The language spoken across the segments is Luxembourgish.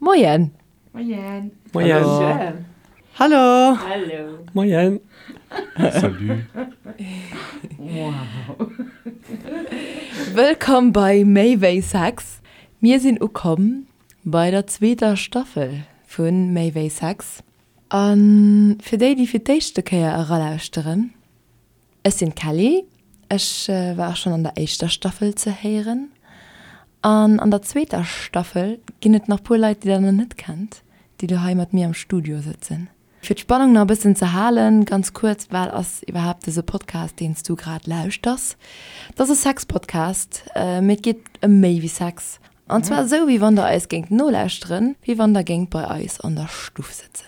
Moien! Moien! Moien! Hallo! Hallo! Moien! Salut! Wow! Wëllkomm bei Méi wéi Sex! Mir sinn ukomm bei der zweeter Staffel vu Méi wéi Sex. A fir déi, déi fir d'éischte Kéier eralauschteren, Ech sinn d'Kelly, ech war och schonn an der éischter Staffel ze héieren. An an der zweeter Staffel ginn et nach puer Leit, déi der nach net kennt, déi lo hei mat mir am Studio sëtzen. Fir d'Spannung nach e bëssen ze halen, ganz kuerz, Wat ass iwwerhaapt dëse Podcast, deen s du grad lauschters? Et ass e Sex-Podcast, mee et geet ëm méi wéi Sex. An zwar esou, wéi wann der eis géingt nolauschteren, wéi wann der géingt bei eis an der Stuff sëtzen.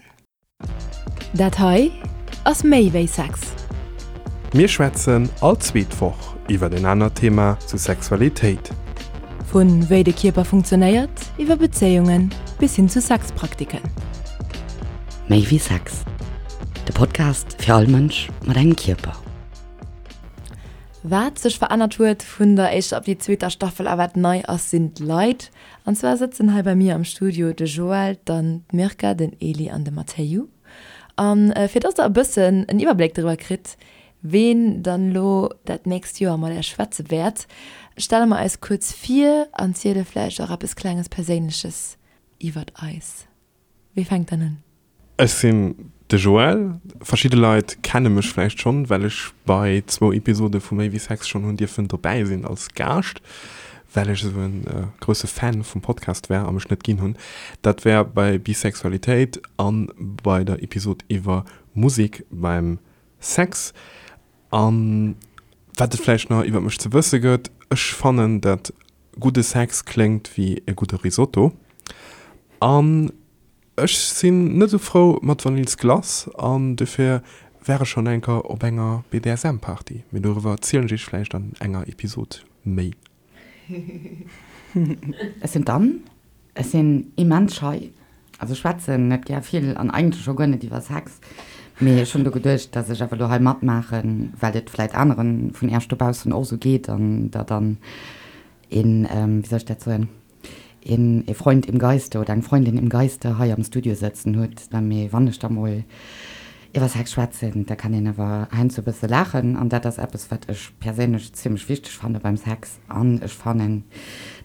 Dat hei ass méi wéi Sex. Mir schwätzen all zweet Woch iwwer en anert Thema zu Sexualitéit. Vu wéi de Kierper funktionéiert, iwwer Bezéiungen bis hin zu Sexpraktiken. Méi wéi Sex, de Podcast fir all Mënsch mat engem Kierper. Wat sech verännert huet vun der éischter op déi zweeter Staffel a wat nei ass, sinn d'Leit. An zwar sëtzen hei bei mir am Studio de Joël, dann d'Mirka, den Eli an de Matteiu. An fir dass der e bëssen en Iwwerbléck driwwer kritt, ween dann elo dat nächst Joer mat Äech schwätze wäert, stelle mer eis kuerz vir an ziele vläicht och eppes klenges Perséinleches iwwert eis. Wie fänkt dann un? Ech sinn de Joël. Verschidde Leit kenne mech vläicht schonn, well ech bei zwou Episode vu Méi wéi Sex schonn hunn dierfen dobäi sinn als Gaascht, well ech esou e grousse Fan vum Podcast war a mech net ginn hunn. Dat war bei Bisexualitéit an bei der Episod iwwer Musek beim Sex. An wat et vläicht nach iwwer mech ze wësse gëtt, ech fannen, dat gudde Sex kléngt wéi e gudde Risotto an Ech sinn net esou frou mat Vanillsglace an dofir war ech schonn enker op enger BDSM Party, mee doriwwer erzielen ech iech vläicht an enger Episode méi. Ech sinn d'Anne, ech sinn immens schei, also schwätzen net gär vill an eigentlech scho guer net iwwer Sex, mee ech hunn do geduecht, dass ech awer elo hei matmaachen, well et vläit aneren vun iech dobaussen och esou geet an der dann een, wéi soll ech dat soen, een e Freund im Geiste oder eng Freundin im Geiste hei am Studio sëtzen hutt, mee wann ech da mol iwwer Sex schwätzen, da kann een awer heiansdo e bësse laachen an dat ass eppes, wat ech perséinlech zimmlech wichteg fanne beim Sex an ech fannen,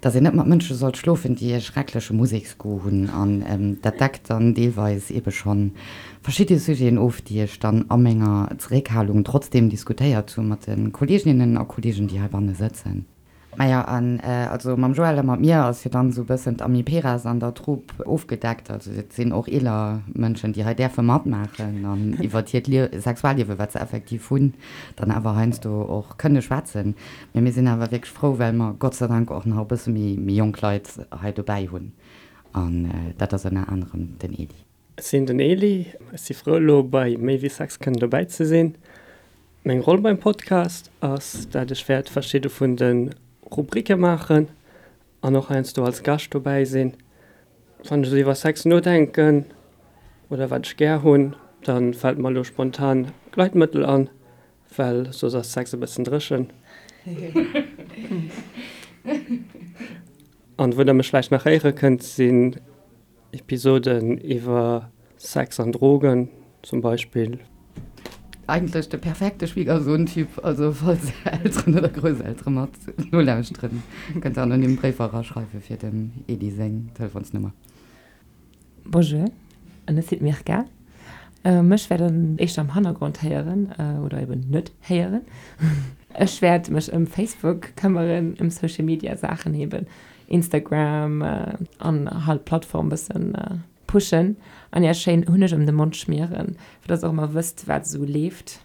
dass een net mat Mënsche sollt schlofen, déi e schreckleche Museksgoût hunn an dat deckt dann deelweis eebe schonn verschidde Sujeten of, déi ech dann a menger Zeréckhalung trotzdeem diskutéiert hu mat de Kolleeginnen a Kolleegen, déi heibanne sëtzen. Maja, an also mam Joël a mat mir ass jo dann esou e bëssen d'Amiperas an der Troupe ofgedeckt. Also et sinn och eeler Mënschen, déi hei däerfe matmaachen an iwwert hiert Lie Sexualliewe, wat se effektiv hunn, dann awer heiansdo och kënne schwätzen. Mee mir sinn awer wierklech frou, well mer Gott sei Dank och nach e bësse méi méi jonk Leit hei dobäi hunn. An dat ass ënner anerem den Edy. Ech sinn den Eli, ech si frou elo bei Méi wéi Sex kënnen dobäi ze sinn. Meng Roll beim Podcast ass dat ech wäert verschidde vun de Rubrike maachen an och heiansdo als Gascht dobäi sinn. Wann ech esou iwwer Sex nodenken oder wat ech gär hunn, da fält mer elo spontan Gleitmëttel an, well soss ass Sex e bëssen dréchen. An wou der mech vläicht nach héiere kënnt sinn Episoden iwwer Sex an Drogen zum Beispill. Eigentlech de perfekte Schwiegersohn-Typ, also falls Elteren oder Grousseltere mat nolauschteren, kënnt der anonym Bréifer eraschreiwe fir dem Edy seng Telefonsnummer. Bonjour, ech sinn d'Mirka. Mech wäert der éischter am Hannergrond héieren oder eben net héieren. Ech wäert mech ëm Facebook këmmeren, ëm Social Media Saachen eben, Instagram an halt d'Plattform bëssen pushen an iech schéin Hunneg ëm de Mond schmieren, fir dass der och ëmmer wësst wat esou leeft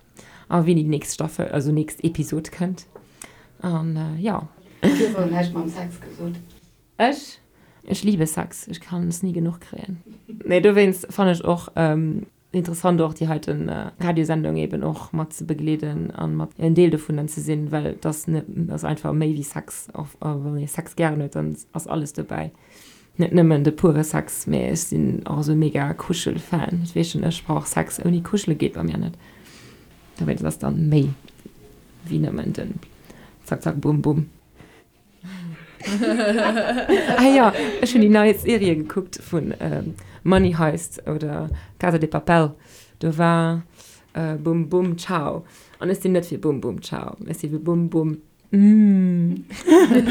a wéini déi nächst Staffel, also nächst Episod kënnt an jo. Du hues awer näischt mam Sex gesot. Ech? Ech liebe Sex, ech kann es ni genuch kréien. Nee, dowéinst fannen ech och Interessant och déi heiten Radiosendung eben och mat ze begleeden an mat en Deel dovunner ze sinn, well et ass net, ass einfach méi wéi Sex. Och wann ee Sex gären huet, dann ass alles dobäi. Net nëmmen de pure Sex, mee ech sinn och esou mega Kuschel-Fan. Ech weess schon, ech brauch Sex ouni Kuschele geet bei mir net. Dowéinst ass dann méi wéi nëmmen den Zack Zack Bum Bum. Ah jo, ech hunn déi nei Serie gekuckt vun Money Heist oder Casa de Papel. Do war Bum Bum Ciao. An ech sinn net fir Bum Bum Ciao, ech si fir Bum Bum Umm. Dat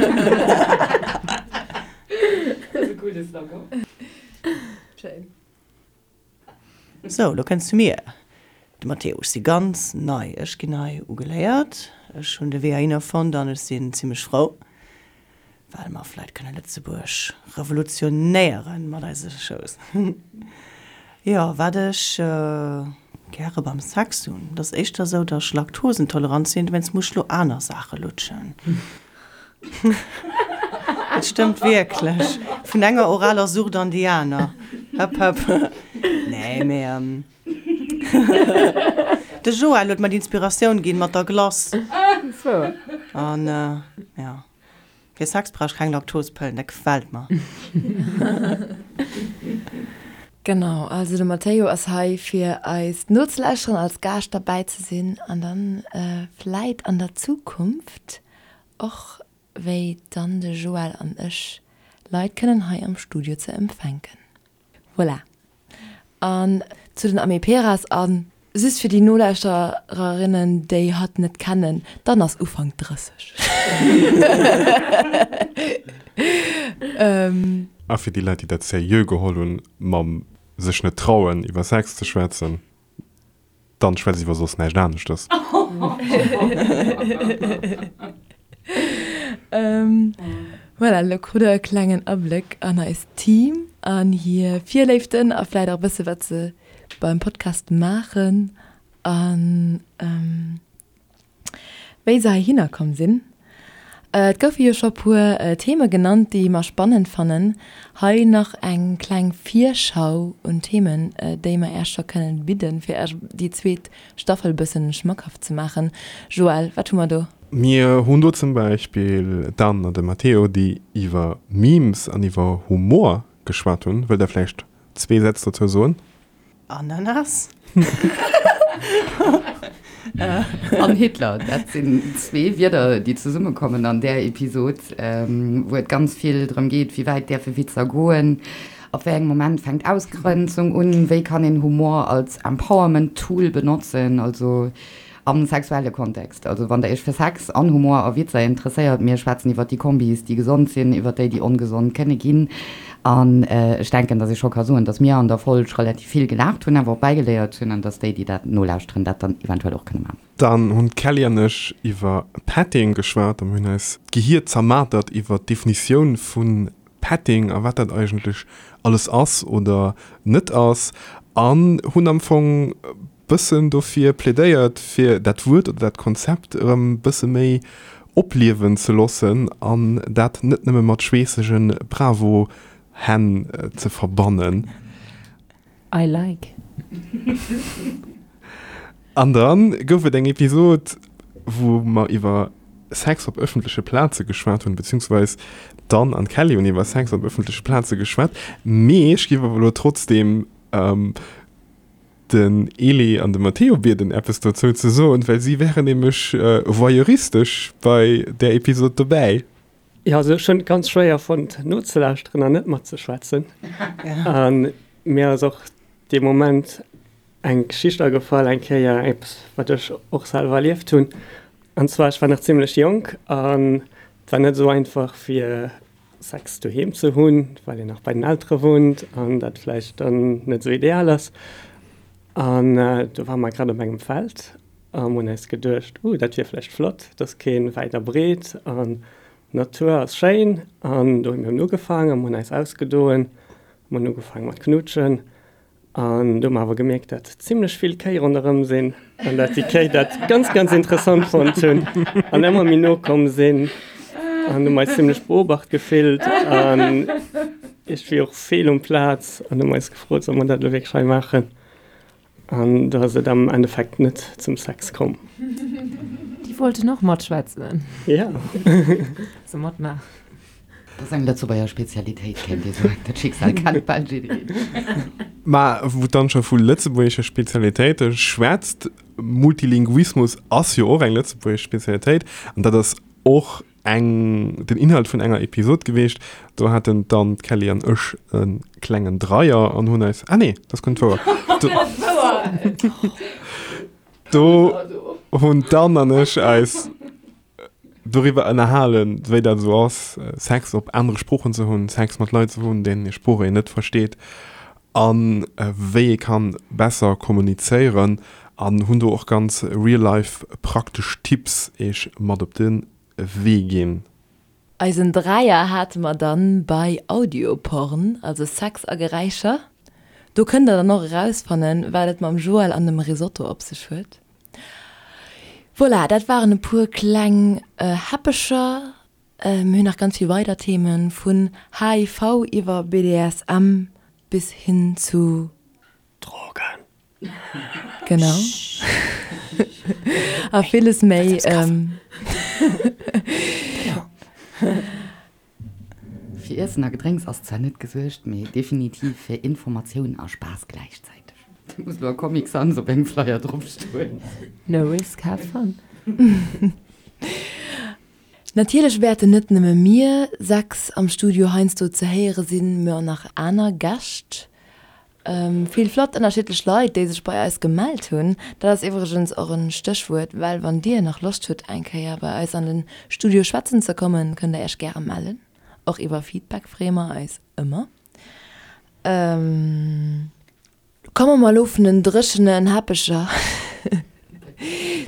ass e gudde Slogan. Schéin. Sou, lo kënns zu mir, de Matteo. Ech si ganz nei, ech ginn hei ugeléiert. Ech hunn de Wee heihinner fonnt an ech sinn zimmlech frou, well mer vläit kënne Lëtzebuerg revolutionéiere mat eise Shows. Jo, wat ech gäre beim Sex hunn, et ass éischter esou, datt ech laktosentolerant sinn, dowéinst muss ech lo aner Saache lutschen. Et stëmmt wierklech. Vun enger oraler Sucht an déi aner. Hëpp hëpp. Nee, mee de Joël huet mer d'Inspiratioun ginn mat der Glace. An jo, fir Sex brauch ech keng Laktospëllen, dat gefält mer. Genau, also de Matteo ass hei fir eis nozelauschteren, als Gaascht derbäi ze sinn an dann vläit an der Zukunft Och wéi dann de Joël an ech Leit kënnen hei am Studio ze empfänken. Voilà. An zu den Amiperas, a just fir déi Nolauschtererinnen, déi hatt net kennen, d'Anne ass Ufank 30. A fir déi Leit, déi dat seriö geholl hunn, mam sech net trauen iwwer Sex ze schwätzen. Dann schwätz iwwer soss näischt aneschtes. Voilà, elo krut der e klengen Abléck an eist Team an hir Virléiften a vläit och e bësse wat se beim Podcast maachen an. Wéi se heihinner komm sinn. Et goufe jo scho puer Theme genannt, déi mer spannend fannen. Hei nach eng kleng Virschau un Themen, déi mer Äech scho kënnen bidden, fir Äech déi zweet Staffel bëssen schmackhaft ze maachen. Joël, wat hu mer do? Mir hunn do zum Beispill d'Anne an de Matteo, déi iwwer Memes an iwwer Humor geschwat hunn. Wëllt Der vläicht zwee Sätz dozou soen? Ananas. An Hitler, dat sinn zwee Wierder, déi zesummekommen an där Episod, wou et ganz vill drëm geet, wéi wäit däerfe Witzer goen, ab wéi engem Moment fänkt Ausgrenzung un, wéi kann een Humor als Empowerment-Tool benotzen, also Am sexuelle Kontext, also wann der iech fir Sex an Humor a Witzer interesséiert, mir schwätzen iwwert déi Kombis, déi gesond sinn, iwwert déi, déi ongesond kënne ginn. An ech denken, dass ee scho ka soen, dass mir an der Folg relativ vill gelaacht hunn, awer och bäigeléiert hunn an dass déi, déi dat nolauschteren, dat dann eventuell och kënne maachen. Dann hunn d'Kelly an ech iwwer Petting geschwat a mir hunn eis d'Gehier zermatert iwwer d'Definitioun vu Petting a wat dat eigentlech alles ass oder net ass an hunn am Fong bëssen dofir plädéiert, fir dat Wuert oder dat Konzept erëm bësse méi opliewen ze loossen an dat net nëmme mat schweessege Bravo-Hänn ze verbannen. I like. An dann gouf et eng Episod, wou mer iwwer Sex op ëffentleche Plaze geschwat hunn, beziehungsweis d'Anne an d'Kelly hunn iwwer Sex op ëffentleche Plaze geschwat. Mee ech géif awer elo trotzdeem den Elie an de Matteo bieden eppes dozou ze soen, well si wären nämlech voyeuristesch bei där Episod dobäi. Jo, also ech hunn et ganz schwéier fonnt nozelauschteren an net matzeschwätzen. A mir ass och dee Moment eng Geschicht agefall, eng Kéier eppes wat ech och selwer erlieft hunn. An zwar, ech war nach zimmlech jonk an et war net esou einfach fir Sex doheem ze hunn, well een nach bei den Eltere wunnt an dat vläicht dann net esou ideal ass. An do ware mer grad op engem Feld a mer hunn eis geduecht, Uh, dat wier vläicht flott, et ass keen wäit a breet an d'Natur ass schéin. An do hu mir ugefaangen a mer hunn eis ausgedoen, mer hunn ugefaange mat knutschen. An do hu mer awer gemierkt, dat zimlech vill Kéi ronderëm sinn an dat déi Kéi dat ganz, ganz interessant fonnt hunn an ëmmer méi no komm sinn. An hu mer eis zimlech beobacht gefillt an iergendwéi och fehl um Plaz an hu mer eis gefrot, solle mer dat elo wierklech hei maachen? An do ass et am Endeffekt net zum Sex komm. Déi wollten och matschwätzen. Ja. Also matmaachen. Dat ass eng Lëtzebuerger Spezialitéit, kéint ee soen. Dat Schicksal kennt bal jiddereen. Mä wou d'Anne scho vu lëtzebuergesche Spezialitéite schwätzt, Multilinguismus ass jo och eng lëtzebuergesch Spezialitéit an dat ass och. eng, den Inhalt vun enger Episod geweecht. Do haten d'Anne, d'Kelly an ech e klengen Dreier an hunn eis, ah nee, dat ass guer net wouer. Do hunn d'Anne an ech eis doriwwer ënnerhalen, wéi dat esou ass, Sex op anere Sproochen ze hunn, Sex mat Leit ze hunn, deenen hir Sprooch een net versteet an wéi ee kann besser kommunizéieren an hunn do och ganz real life praktesch Tipps eech mat op de Wee ginn. Eisen Dräier hate mer dann bei Audioporn, also Sex a Geräischer. Do kënnt der dann och erausfannen, wat et mam Joël an dem Risotto op sech huet. Voilà, dat waren e puer kleng Häppecher. Mir hunn nach ganz vill weider Themen, vun HIV iwwer BDSM bis hin zu. Drogen. Genau. A villes méi. Fir Iessen a Gedrénks ass zwar net gesuergt, mee definitiv fir Informatioun a Spaass gläichzäiteg. Do muss elo a Comic Sans op engem Flyer drop stoen. No risk, have fun. Natierlech wäerten net nëmme mir 6 am Studio heiansdo ze héiere sinn, mä och nach aner Gäscht. Vill flott ënnerschiddlech Leit, déi sech bei eis gemellt hunn. Dat ass iwwregens och en Stéchwuert, well wann dir nach Loscht hutt eng Kéier bei eis an den Studio schwätzen ze kommen, kënnt der iech gäre mellen. Och iwwer Feedback freeë mer eis ëmmer. Komme mer elo vun den dréchenen Heppecher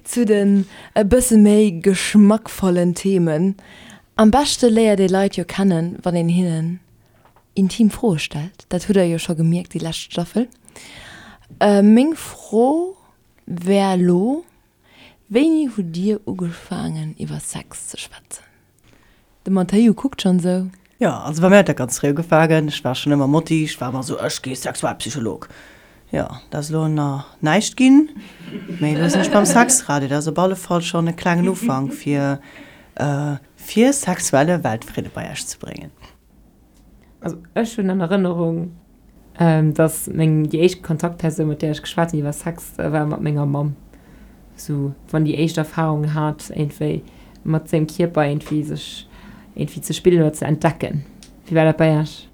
zu den e bësse méi geschmackvollen Themen. Am beschte léiert ee Leit jo kennen, wann een hinnen intim Froe stellt. Dat hutt der jo scho gemierkt déi lescht Staffel. Meng Fro wär elo, Wéini hutt Dir ugefaangen iwwer Sex ze schwätzen? De Matteo kuckt schonn esou. Jo, also bei mir huet dat ganz fréi ugefaangen. Ech war schonn ëmmer Motti, ech war ëmmer esou, ech gi Sexualpsycholog. Jo, dat ass elo nach näischt ginn, mee elo sinn ech beim Sexradio. Dat ass op alle Fall schonn e klengen Ufank, fir fir sexuelle Weltfridde bei Iech ze bréngen. Also ech hunn an Erënnerung, dass meng déi éischt Kontaktpersoun, mat där ech geschwat hunn iwwer Sex, war mat menger Mamm. Sou wann déi éischt Erfarungen hat iergendwéi mat sengem Kierper iergendwéi sech iergendwéi ze spillen oder ze entdecken. Wéi war dat bei Iech?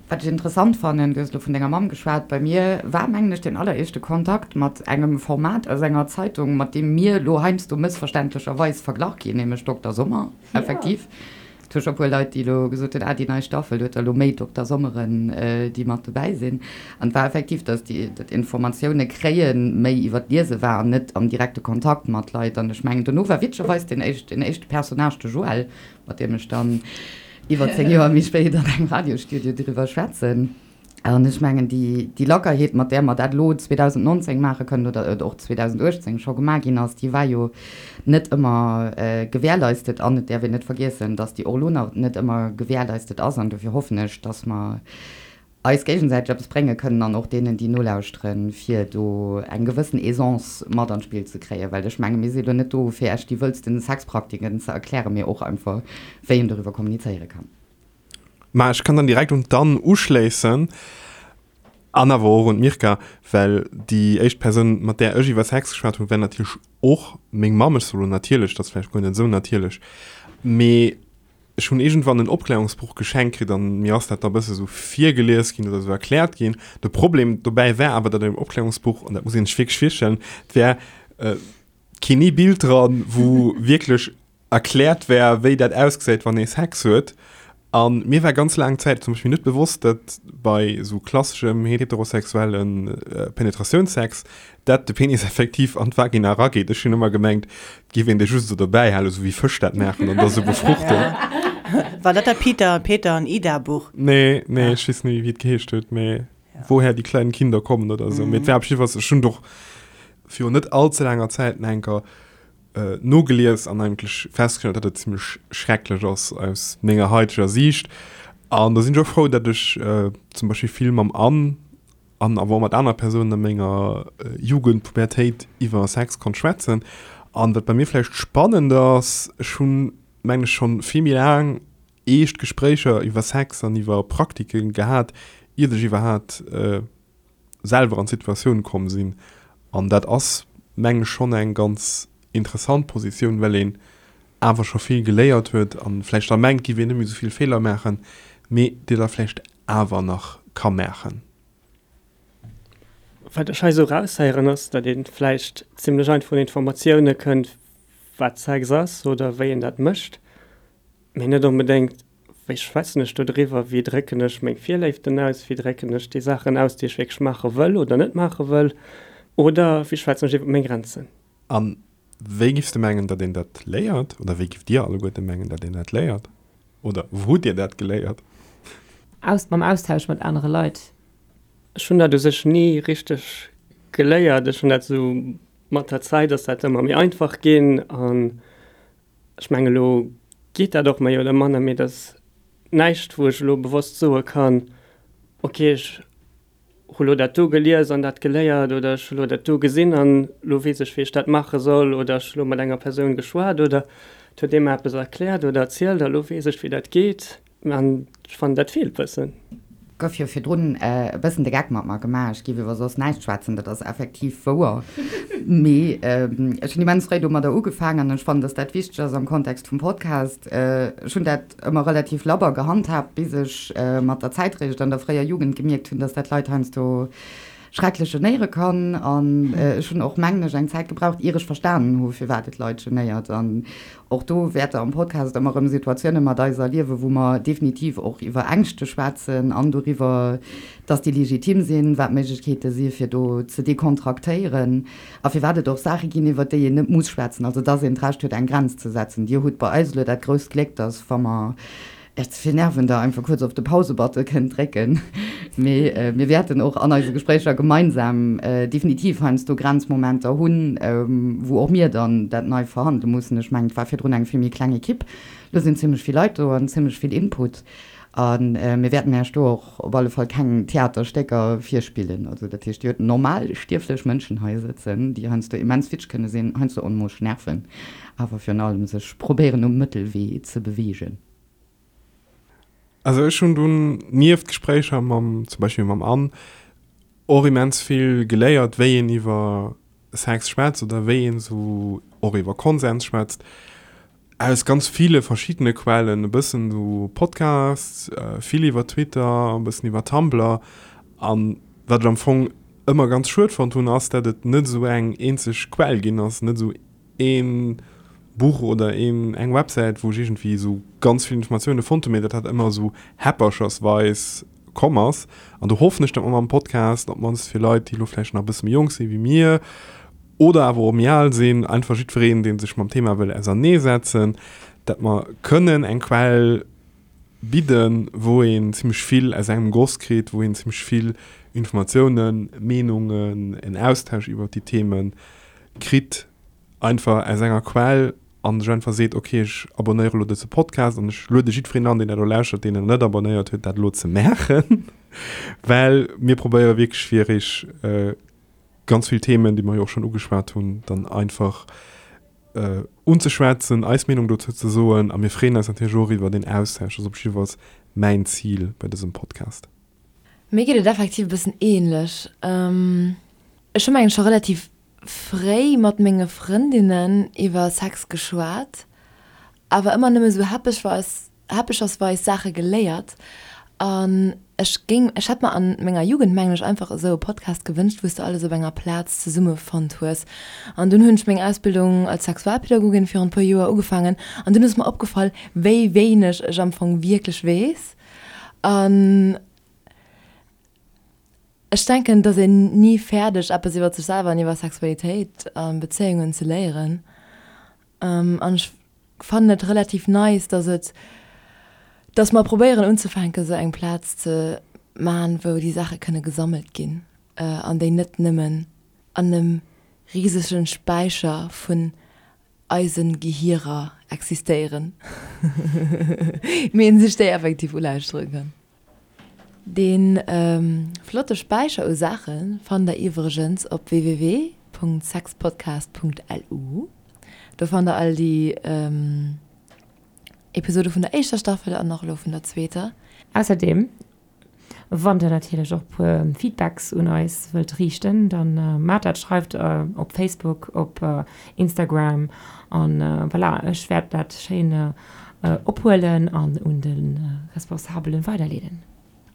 Wat ech interessant fannen, du hues elo vun denger Mamm geschwat, bei mir war mengen ech deen alleréischte Kontakt mat engem Format aus enger Zeitung, mat deem mir elo heiansdo mëssverständlecherweis verglach ginn, nämlech Dokter Sommer, effektiv. Et hu scho puer Leit, déi elo gesot hunn, ah déi nei Staffel huet der elo méi Dokter Sommeren, déi mat dobäi sinn. An et war effektiv, datt déi dat Informatioune kréie méi iwwer d'Liese war an net am direkte Kontakt mat Leit. An ech mengen, dono war witzegerweis deen éischt, deen éischte Personnage de Joël, mat deem ech dann iwwer 10 Joer méi spéit an engem Radiosstudio driwwer schwätzen. An ech mengen, déi, déi Lackerheet, mat där mer dat elo 2019 maache kënnen oder et och 2018 scho gemaach ginn ass, déi war jo net ëmmer gewährleistet. An et däerf een net vergiessen, dass déi och elo nach net ëmmer gewährleistet ass. An dofir hoffen ech, dass mer eis géigesäiteg eppes brénge kënnen an och deenen, déi nolauschteren, fir do eng gewëssen Aisance mat an d'Spill ze kréien. Well ech menge mir si elo net do, fir Iech déi wëllsten Sexpraktiken ze erklären, mee och einfach, wéi een doriwwer kommunizéiere kann. Mä ech kann dann direkt un d'Anne uschléissen an awer och un d'Mirka, well déi éischt Persoun, mat där ech iwwer Sex geschwat hunn, war natierlech och meng Mamm. Ech soe lo natierlech, dat ass vläicht guer net esou natierlech, mee ech hunn iergendwann en Opklärungsbuch geschenkt kritt an mir ass dat da e bësse sou virgelies ginn oder sou erkläert ginn. De Problem dobäi war awer, datt an deem Opklärungsbuch, an dat muss een sech wierklech virstellen, et war keen ee Bild dran, wou wierklech erkläert wär, wéi dat ausgesäit, wann ee Sex huet. A mir war ganz laang Zäit zum Beispill net bewosst, datt bei esou klasseschem heterosexuelle Penetratiounssex, dat de Penis effektiv an d'Vagina erageet. Ech hunn ëmmer gemengt, et géif een dee just esou dobäi halen, esou wéi Fësch dat maachen an da sou befruchten. War dat dat Peter, Peter an Ida Buch? Nee, nee, ech weess net méi, wéi et geheescht huet, mee Woher die kleinen Kinder kommen oder esou. Mee et war op jiddefalls, ech hunn et och virun net all ze laanger Zäit nach eng Kéier nogelies an eigentlech festgestallt, datt et zimmlech schrecklech ass aus menger haiteger Siicht. An da sinn ech och frou, datt ech zum Beispill vill mam Anne an awer och mat aner Persounen a menger Jugend, Pubertéit iwwer Sex konnt schwätzen. An wat bei mir vläicht spannend ass, ech hunn, mengen ech, schonn vill méi laang eescht Gespréicher iwwer Sex an iwwer Praktike gehat, iert ech iwwerhaapt selwer an d'Situatioun komm sinn. An dat ass, mengen ech, schonn eng ganz interessant Positioun, well een. awer scho vill geléiert huet an vläicht da mengt, giff een net méi esou vill Feeler maachen, mee déi der vläicht awer nach ka maachen. Wat ech hei esou eraushéieren ass, datt ee vläicht zimlech einfach un Informatioune kënnt, wat Sex ass oder wéi een dat mécht, mee net onbedéngt, wéi schwätzen ech do driwwer, wéi drécken ech meng Virléiften aus, wéi drécken ech déi Saachen aus, déi ech wierklech maache wëll oder net maache wëll, oder wéi schwätzen ech iwwer meng Grenzen. A wéi giffs de mengen, datt een dat léiert? Oder wéi gifft Dir alleguerte mengen, datt een dat léiert? Oder wou hutt Dir dat geléiert? Aus, mam Austausch mat anere Leit. Ech hunn dat u sech ni richteg geléiert. Ech hunn dat esou mat der Zäit ass dat ëmmer méi einfach ginn an ech mengen elo geet dat och méi oder manner, mee et ass näischt wou ech elo bewosst soe kann, okay ech hu lo dat do gelies an dat geléiert oder ech hu lo dat do gesinn an lo weess ech wéi ech dat maache soll oder ech hu lo mat enger Persoun geschwat oder et huet ee mer eppes erkläert oder erzielt a lo weess ech wéi dat geet an ech fannen dat feelt bëssen. Gouf jo virdrun e bëssen de Geck mat mer gemaach, ech géif iwwer soss näischt schwätzen, dat ass effektiv wouer, mee ech hunn immens fréi domadder ugefaangen an ech fannen, dass dat wichteg ass am Kontext vum Podcast. Ech hunn dat ëmmer relativ labber gehandhaabt, bis ech mat der Zäit réischt an der fréier Jugend gemierkt hunn, dass dat Leit heiansdo schrecklech genéiere kann. An ech hunn och, mengen ech, eng Zäit gebraucht, ier ech verstanen hu firwat et Leit genéiert. An och do wäert Der am Podcast ëmmer erëm Situatioune mat eis erliewen, wou mer definitiv och iwwer Ängschte schwätzen an doriwwer, dass déi legitim sinn, wat d'Méiglechkeete si fir do ze dekontraktéieren. A firwat et och Saache ginn, iwwert déi een net muss schwätzen, also dass een d'Recht huet, eng Grenz ze setzen. Dir hutt bei eis elo dat grousst Gléck, dass, wa mer Iech ze vill nerven, Der einfach kuerz op de Pause-Button kënnt drécken. Mee mir wäerten och an eise Gespréicher gemeinsam definitiv heiansdo Grenzmomenter hunn, wou och mir dann dat nei verhandele mussen. Ech mengen, et war virdrun eng vill méi kleng Ekipp. Elo sinn zimlech vill Leit do an zimlech vill Input. A mir wäerten Iech do och op alle Fall keng Theaterstécker virspillen. Also dat heescht, Dir hutt normal stierflech Mënschen hei sëtzen, déi heiansdo immens witzeg kënne sinn, heiansdo onmoosch nerven, awer virun allem sech probéieren um Mëttelwee ze beweegen. Also ech hunn dunn nieft Gespréicher mam, zum Beispill mam Anne, och immens vill geléiert, wéi een iwwer Sex schwätzt oder wéi een esou och iwwer Konsens schwätzt. Aus ganz ville verschiddene Quellen, e bëssen esou Podcasts, vill iwwer Twitter, e bëssen iwwer Tumblr. An wat ech am Fong ëmmer ganz schued fonnt hunn, ass, dat et net esou eng eenzeg Quell ginn ass, net esou ee Buch oder een, eng Websäit, wou ech iergendwéi esou ganz vill Informatioune fonnt hunn, mee dat dat ëmmer esou häpperchersweis komm ass. An do hoffen ech, datt mer mam Podcast, op d'mannst fir Leit, déi elo vläicht nach e bësse méi jonk si wéi mir, oder awer och méi al sinn, einfach jiddwereen, dee sech mam Thema wëll auserneesetzen, dat mer kënnen eng Quell bidden, wou een zimmlech vill aus engem Goss kritt, wou een zimmlech vill Informatiounen, Meenungen, en Austausch iwwert déi Themen kritt, einfach aus enger Quell a sech einfach seet, okay, ech abonnéiere elo dëse Podcast an ech luede jiddwereen an, deen dat elo lauschtert, deen en net abonnéiert huet, dat elo ze maachen, well mir probéiere wierklech fir iech ganz vill Themen, déi mer jo och schonn ugeschwat hunn, dann einfach unzeschwätzen, eis Meenung dozou ze soen. A mir freeën eis natierlech och iwwer den Austausch. Dat ass op jiddefalls mäin Zil bei dësem Podcast. Mir geet et effektiv e bëssen ähnlech. Ech hu mengen scho relativ fréi mat menge Frëndinnen iwwer Sex geschwat, awer ëmmer nëmme sou häppechweis häppechersweis Saache geléiert an ech géing, ech hätt mer an menger Jugend mengen ech einfach esou e Podcast gewënscht, wou s de alles op enger Plaz zesumme fonnt hues. An dunn hunn ech meng Ausbildung als Sexualpädagogin virun e puer Joer ugefaangen an dunn ass mer opgefall, wéi wéineg ech am Fong wierklech weess an ech denken, dass een ni fäerdeg eppes iwwer sech selwer an iwwer Sexualitéit a Bezéiungen ze léieren an ech fannen et relativ nice, dass et, dass mer probéieren unzefänken, esou eng Plaz ze man, wou déi Saache kënne gesammelt ginn an déi net nëmmen an em risegen Späicher vun eise Gehierer existéieren, mee een sech déi effektiv ulauschtere kann. Dee flotte Späicher u Saache fannt der iwwregens op www.sexpodcast.lu. Do fannt der all déi Episode vun der éischter Staffel an och elo vun der zweeter. Ausserdeem. Wann der natierlech och puer Feedbacks un eis wëllt riichten, dann maacht dat, schreift op Facebook, op Instagram an voilà, ech wäert dat schéin ophuelen an un de Responsabelen weiderleeden.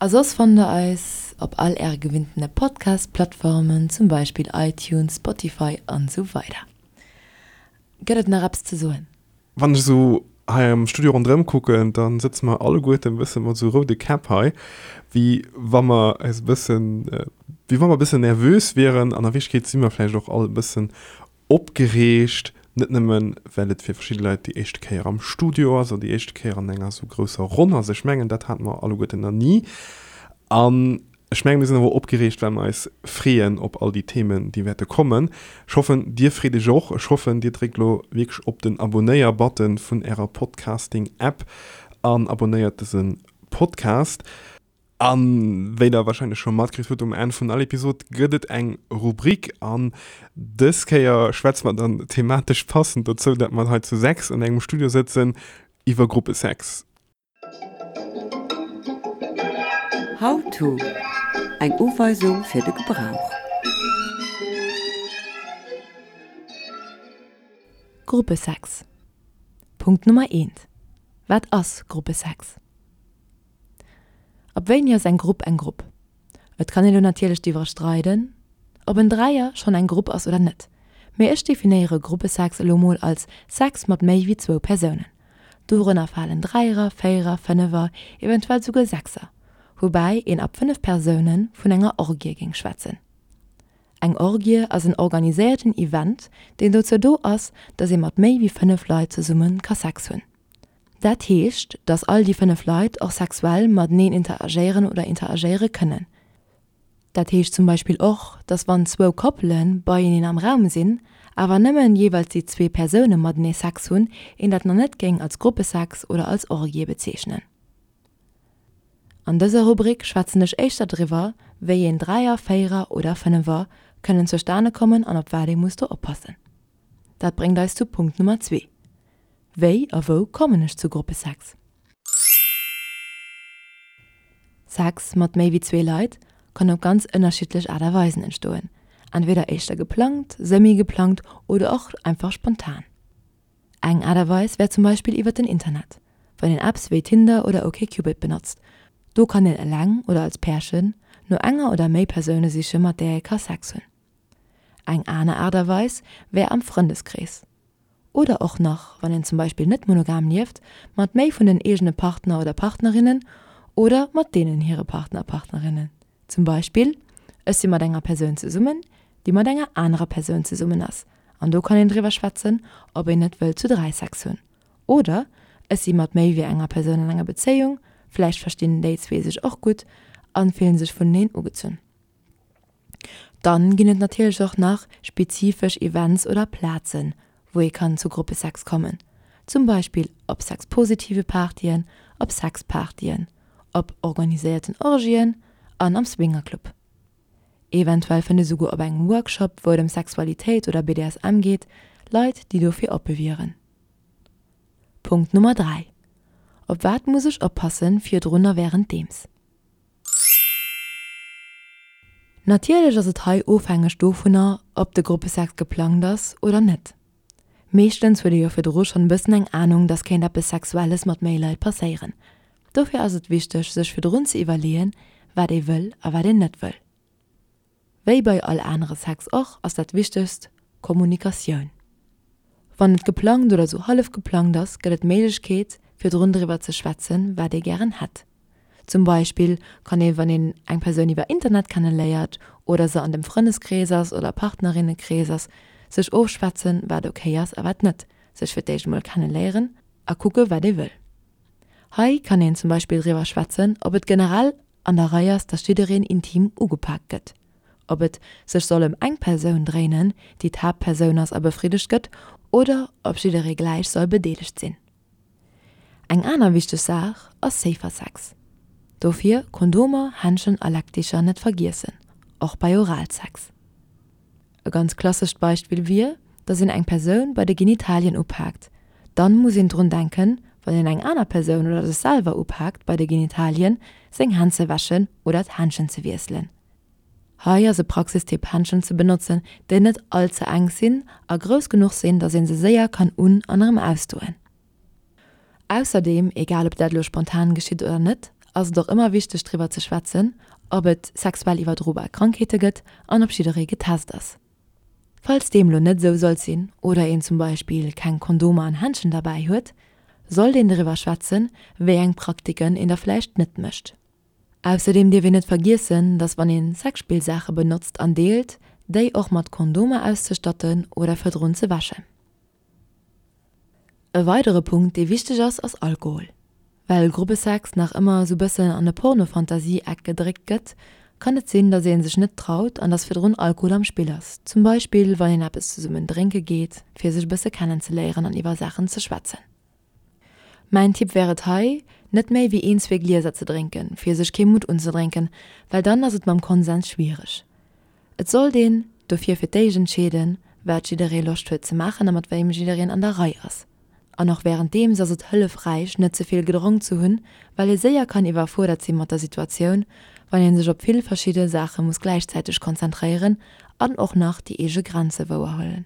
A soss fannt der eis op all äre gewinntene Podcast-Plattformen, zum Beispill iTunes, Spotify an esou weider. Gëtt et nach eppes ze soen? Wann ech esou hei am Studio ronderëm kucken, da sëtze mer alleguerten e bësse mat esou roude Käpp hei, wéi wa mer eis e bëssen, wéi wa mer e bëssen nervös wieren. An a Wierklechkeet si mer vläicht och all e bëssen opgereegt, net nëmmen, well et fir verschidde Leit déi éischte Kéier am Studio ass oder déi éischte Kéier an enger esou grousser Ronn ass. Ech mengen, dat hate mer alleguerten nach ni. An Ech mengen, mir sinn awer och opgereegt, well mer eis freeën op all déi Themen, déi wäerte kommen. Ech hoffen, Dir freet Iech och. Ech hoffen, Dir dréckt elo wierklech op den Abonéier-Button vun Ärer Podcasting-App an abonéiert dëse Podcast. A wéi Der warscheinlech scho matkritt hutt, um Enn vun all Episod gëtt et eng Rubrik. An dës Kéier schwätze mer dann thematesch passend dozou, dat mer hei zu 6 an engem Studio sëtzen, iwwer Gruppesex. How to, Eng Uweisung fir de Gebrauch. Gruppesex Punkt Nummer eent, Wat ass Gruppesex? Ab wéini ass eng Grupp eng Grupp? Et kann een elo natierlech driwwer streiden, ob en Dräier schonn eng Grupp ass oder net, mee ech definéiere Gruppesex elo mol als Sex mat méi wéi zwou Persounen. Dorënner falen Dräierer, Véierer, Fënnefer, eventuell souguer Sechser, woubäi een ab 5 Persoune vun enger Orgie géing schwätzen. Eng Orgie ass en organiséierten Event, deen dozou do ass, dass ee mat méi wéi 5 Leit zesumme ka Sex hunn. Dat heescht, dass all déi 5 Leit och sexuell mateneen interagéieren oder interagéiere kënnen. Dat heescht zum Beispill och, dass wann zwou Koppele beieneen am Raum sinn, awer nëmmen jeeweils déi zwee Persoune matenee Sex hunn, een dat nach net géing als Gruppesex oder als Orgie bezeechnen. An dëser Rubrik schwätzen ech éischter driwwer, wéi een Dräier, Véierer oder Fënnefer kënnen zustane kommen an op wat ee muss do oppassen. Dat bréngt eis zu Punkt Nummer zwee, Wéi a wou kommen ech zu Gruppesex? Sex mat méi wéi zwee Leit kann op ganz ënnerschiddlech Aart a Weisen entstoen, entweder éischter geplangt, semi-geplangt oder och einfach spontan. Eng Aart a Weis wär zum Beispill iwwer den Internet, wann een Apps wéi Tinder oder OkCupid benotzt. Do kann een eleng oder als Pärchen no enger oder méi Persoune siche mat där ee ka Sex hunn. Eng aner Aart a Weis wär am Frëndeskrees. Oder och nach, wann een zum Beispill net monogam lieft, mat méi vun den eegene Partner oder Partnerinnen oder mat deenen hire Partner a Partnerinnen. Zum Beispill, ech si mat enger Persoun zesummen, déi mat enger anerer Persoun zesummen ass, an do kann een driwwer schwätzen, ob een net wëllt zu 3 Sex hunn. Oder ech si mat méi wéi enger Persoun an enger Bezéiung, vläicht verstinn déi zwee sech och gutt an fillen sech vuneneen ugezunn. Dann ginn et natierlech och nach spezifesch Events oder Plazen, wou ee kann zu Gruppesex kommen, zum Beispill op sexpositive Partyen, op Sexpartyen, op organiséierten Orgien an am Swingerclub. Eventuell fënnt ee souguer op engem Workshop, wou et ëm Sexualitéit oder BDSM geet, Leit, déi dofir oppe wieren. Punkt Nummer 3, Op wat muss ech oppassen virdrun a wärenddeems? Natierlech ass et hei ofhängeg dovunner, ob de Gruppesex geplangt ass oder net. Meeschtens huet ee jo virdru schonn e bëssen eng Anung, dass kéint eppes Sexuelles mat méi Leit passéieren. Dofir ass et wichteg, sech virdrun ze iwwerleeën, wat ee wëll a wat een net wëll. Wéi bei all anere Sex och, ass dat Wichtegst Kommunikatioun. Wann et geplangt oder sou hallef geplangt ass, gëtt et d'Méiglechkeet, virdrun driwwer ze schwätzen, wat ee gären hätt. Zum Beispill kann ee wann een eng Persoun iwwer Internet kenne léiert oder se an dem Frëndeskrees ass oder Partnerinnekrees ass, sech ofschwätzen, wat ok ass a wat net, sech fir d'éischt emol kenne léieren a kucke wat ee wëll. Hei kann een zum Beispill driwwer schwätzen, ob et generell an der Rei ass, dass jiddereen intim ugepak gëtt, ob et sech soll ëm eng Persoun dréinen, déi d'Haaptpersoun ass a befriddegt gëtt, oder ob jidderee gläich soll bedeelegt sinn. Eng aner wichteg Saach ass safer Sex. Dofir Kondomer, Händschen a Leckdicher net vergiessen, och bei Oralsex. E ganz klassescht Beispill wier, dass een eng Persoun bei de Genitalien upaakt. Dann muss een drun denken, wann een eng aner Persoun oder sech selwer upaakt bei de Genitalien, seng Hänn ze wäschen oder d'Händschen ze wiesselen. Hei ass e Praxistipp Händschen ze benotzen, déi net all ze enk sinn a grouss genuch sinn, dass een se séier kann un an erëm ausdoen. Ausserdeem, egal ob dat elo spontan geschitt oder net, ass et och ëmmer wichteg driwwer ze schwätzen, ob et sexuell iwwerdrobar Krankheete gëtt an ob jidderee getest ass. Falls deem lo net esou sollt sinn oder een zum Beispill keng Kondomer an Händschen derbäi huet, sollt een driwwer schwätzen, wéi eng Praktiken een da vläicht net mécht. Ausserdeem dierf een net vergiessen, dass wann een Sexspillsaache benotzt an deelt, déi och mat Kondomer auszestatten oder virdrun ze wäschen. E weidere Punkt, dee wichteg ass, ass Alkohol. Well Gruppesex nach ëmmer esou bëssen an e Porno-Fantasie-Eck gedréckt gëtt, kann et sinn, dass ee sech net traut an dass virdrun Alkohol am Spill ass, zum Beispill wann een eppes zesummen drénke geet, fir sech e bësse kennenzeléieren an iwwer Saachen ze schwätzen. Mäin Tipp wär et hei, net méi wéi een, zwee Glieser ze drénken, fir sech kee Mutt unzedrénken, well dann ass et mam Konsens schwiereg. Et sollt een dofir fir d'éischt entscheeden, wat jidderee Loscht huet ze maachen a mat wéim jiddereen an der Rei ass. An och wärenddeems ass et hëllefräich, net ze vill gedronk ze hunn, well ee séier kann iwwerfuerdert si mat der Situatioun, wann ee sech op vill verschidde Saache muss gläichzäiteg konzentréieren an och nach déi eege Grenze wouerhuelen.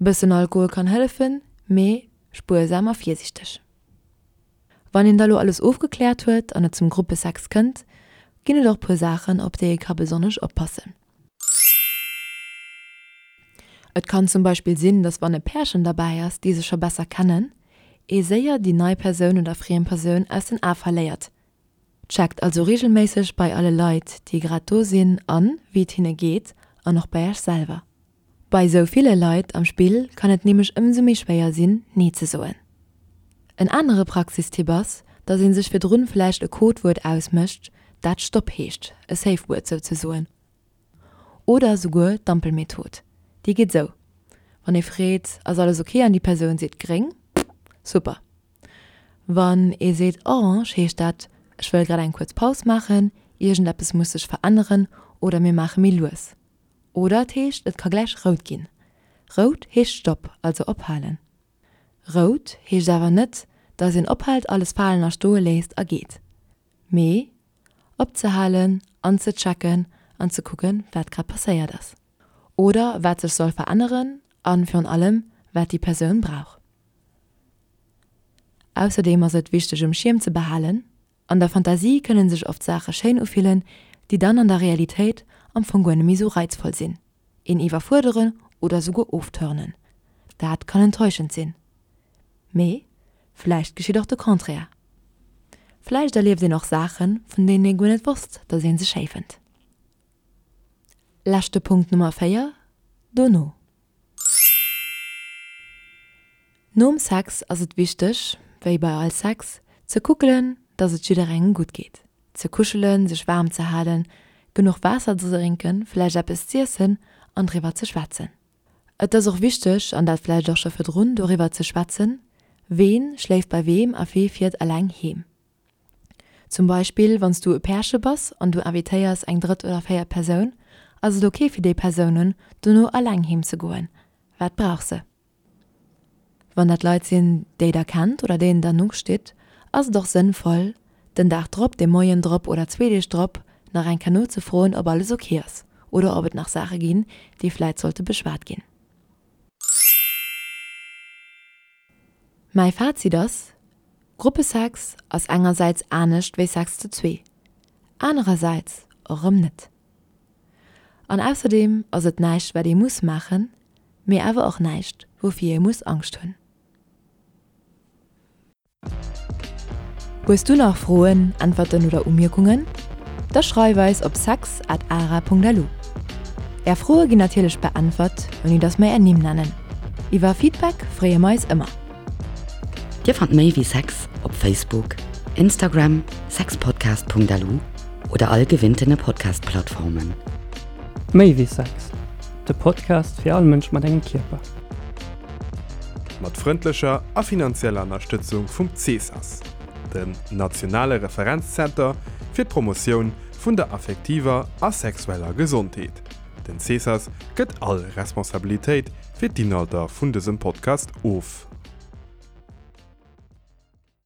Bëssen Alkohol kann hëllefen, mee spuersam a virsiichteg. Wann een da lo alles ofgekläert huet an et zum Gruppesex kënnt, ginn et och puer Saachen, op déi ee ka besonnesch oppassen. Et kann zum Beispill sinn, dass wann e Pärchen derbäi ass, déi sech scho besser kennen, ee séier déi nei Persoun oder friem Persoun aus den Ae verléiert. Checkt also reegelméisseg bei alle Leit, déi grad do sinn an, wéi et hinne geet an och bei iech selwer. Bei sou ville Leit am Spill kann et nämlech ëmsou méi schwéier sinn, Nee ze soen. En anere Praxistipp ass, dass ee sech virdrun vläicht e Codewuert ausmécht, dat Stopp heescht, e Safe Word souzesoen. Oder souguer d'Ampelmethod. Déi geet sou, Wann ee freet, Ass alles ok? an déi Persoun seet gréng, super. Wann ee seet orange, heescht dat, Ech wëll grad eng kuerz Paus maachen, iergendeppes muss sech veränneren oder mir maache méi lues. Oder et heescht, et ka gläich rout ginn. Rout heescht Stopp, also ophalen. Rout heescht awer net, dass een ophält, alles falen a stoe léisst a geet. Mee opzehalen an ze checken an ze kucken, wat grad passéiert ass. Oder wat sech soll veränneren a virun allem, wat déi Persoun brauch. Ausserdeem ass et wichteg um Schierm ze behalen, An der Fantasie kënnen sech oft Saache schéin ufillen, déi dann an der Realitéit am Fong guer net méi sou reizvoll sinn, een iwwerfuerderen oder souguer ofturnen. Dat kann enttäuschend sinn. Mee vläicht geschitt och de Contraire. Vläicht erlieft een och Saachen, vun deenen ee guer net wosst, dass een se schéi fënnt. Leschte Punkt Nummer 4, Dono. Nom Sex ass et wichteg, wéi bei all Sex, ze kuckelen, dass et jidderengem gutt geet. Ze kuschelen, sech waarm ze halen, genuch Waasser ze drénken, vläicht eppes z'iessen an driwwer ze schwätzen. Et ass och wichteg, an dat vläicht och scho virdrun, doriwwer ze schwätzen, ween schléift bei weem a wee fiert eleng heem. Zum Beispill wann s du e Pärche bass an du invitéiers eng drëtt oder véiert Persoun, ass et ok fir déi Persounen dono eleng heem ze goen? Wat brauch se? Wann dat Leit sinn, déi der kennt oder deenen der no stitt, ass et och sënnvoll, den Dag drop, de Moien drop oder zwee Deeg drop nach eng Kéier nozefroen, ob alles ok ass oder ob et nach Saache ginn, déi vläit sollte beschwat ginn. Mäi Fazit ass, Gruppesex ass engersäits anescht wéi Sex zu zwee, anerersäits och erëm net. An ausserdeem ass et näischt wat ee muss maachen, mee awer och näischt woufir ee muss Angscht hunn. Hues du nach Froen, Äntwerten oder Umierkungen? Da schreif eis op sex at ara.lu. Är Froe ginn natierlech beäntwert, ouni dass mer är Nimm nennen. Iwwer Feedback freeë mer eis ëmmer. Dir fannt méi wéi Sex op Facebook, Instagram, sexpodcast.lu oder all gewinntene Podcast-Plattformen. Méi wéi Sex, de Podcast fir all Mënsch mat engem Kierper. Mat frëndlecher a finanzieller Ënnerstëtzung vum CESAS, dem nationale Referenzzenter fir d'Promotioun vun der affektiver a sexueller Gesondheet. Den CESAS gëtt all Responsabilitéit fir d'Inhalter vun dësem Podcast of.